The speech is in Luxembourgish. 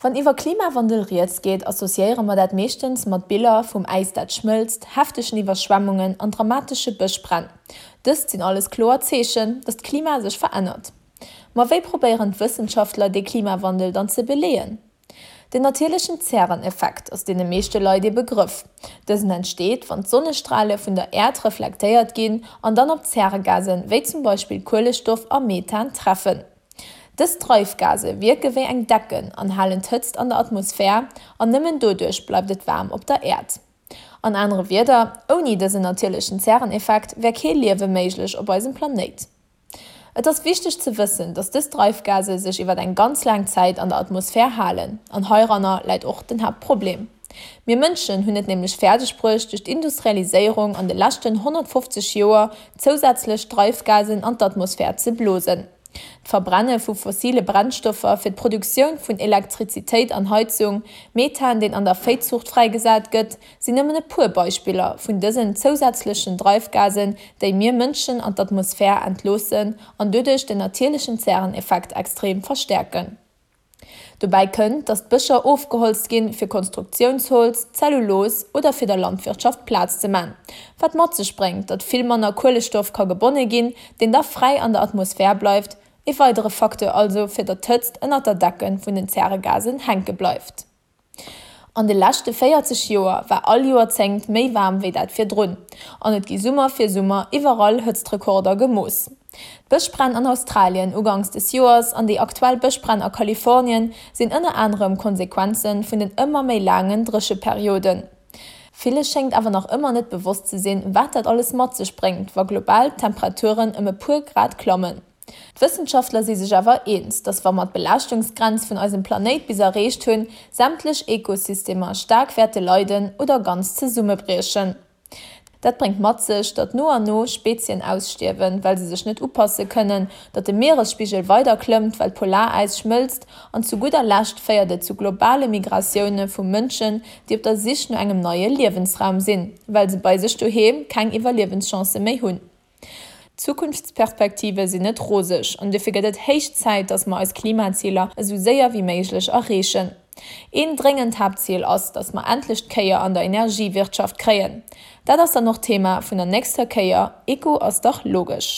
Wann iwwer Klimawandel rieds geet, associéiere mer dat meeschtens mat Biller vum Äis dat schmëlzt, heftegen Iwwerschwemmungen an dramatesche Bëschbränn. Dëst sinn alles kloer Zeechen, datt d'Klima sech verännert. Ma wéi probéieren d'Wëssenschaftler dee Klimawandel dann ze beleeën? Den natierlechen Zäreneffekt ass deene meeschte Leit ee Begrëff. Dësen entsteet, wann d'Sonnestrale vun der Äerd reflektéiert ginn an dann op Zäregasen, wéi zum Beispill Kuelestoff a Methan, treffen. Dës Dreifgase wierke wéi eng Decken an halen d'Hëtzt an der Atmosphär an nëmmen doduerch bleift et waarm op der Äerd. An anere Wierder, ouni dësen natierlechen Zäreneffekt wär kee Liewe méiglech op eisem Planéit. Et ass wichteg ze wëssen, datt dës Dreifgase sech iwwer eng ganz laang Zäit an der Atmosphär halen an heiranner läit och den Haaptproblem. Mir Mënschen hunn et nämlech fäerdeg bruecht, duerch d'Industrialiséierung an de leschten 150 Joer zousätzlech Dreifgasen an d'Atmosphär ze blosen. D'Verbrenne vu fossile Brennstoffer fir d'Produktioun vun Elektrizitéit an Heizung, Methan, deen an der Véizuucht fräigesat gëtt, sinn nëmmen e puer Beispiller vun dësen zousätzlechen Dreifgasen, déi mir Mënschen an d'Atmosphär entloossen an doduerch den natierlechen Zäreneffekt extrem verstäerken. Dobäi kënnt, datt d'Bëscher ofgeholzt ginn, fir Konstruktiounsholz, Zellulos oder fir der Landwirtschaft Plaz ze man, wat mat sech bréngt, datt vill manner Kuelestoff ka gebonne ginn, deen da fräi an der Atmosphär bleift, e weidere Facteur also, fir datt d'Hëtzt ënnert der Decke vun den Zäregasen hänke bleift. An de leschte 40 Joer war all Joerzéngt méi waarm wéi dat virdrun, an et gi Summer fir Summer iwwerall Hëtztrekorder gemooss. D'Bëschbränn an Australien uganks des Joers an déi aktuell Bëschbränn a Kalifornien sinn ënner anerem Konsequenze vun den ëmmer méi laangen Drécheperioden. Ville schéngt awer nach ëmmer net bewosst ze sinn, wat dat alles mat sech bréngt, wa global d'Temperaturen ëm e puer Grad klammen. D'Wëssenschaftler si sech awer eens, datt wa mer d'Belaaschtungsgrenz vun eisem Planéit bis erreecht hunn, sämtlech Ekosystemer staark wäerte leiden oder ganz zesummebriechen. Dat bréngt mat sech, datt no an no Spezien ausstierwen, well se sech net upasse kënnen, datt de Mieresspigel weider klëmmt, well d'Polaräis schmëlzt an zu gudder Lescht féiert et zu globale Migratioune vu Mënschen, déi op der Sich no engem neie Liewensraum sinn, well se bei sech doheem keng Iwwerliewenschancë méi hunn. D'Zukunftsperspektive sinn net roseg an dofir gëtt et héich Zäit, datt mer eis Klimaziler esou séier wéi méiglech erreechen. Een dréngend Haaptzil ass, datt mer endlech d'Kéier an der Energiewirtschaft kréien. Dat ass dann och d'Thema vun der nächster Kéier Eko ass dach logesch.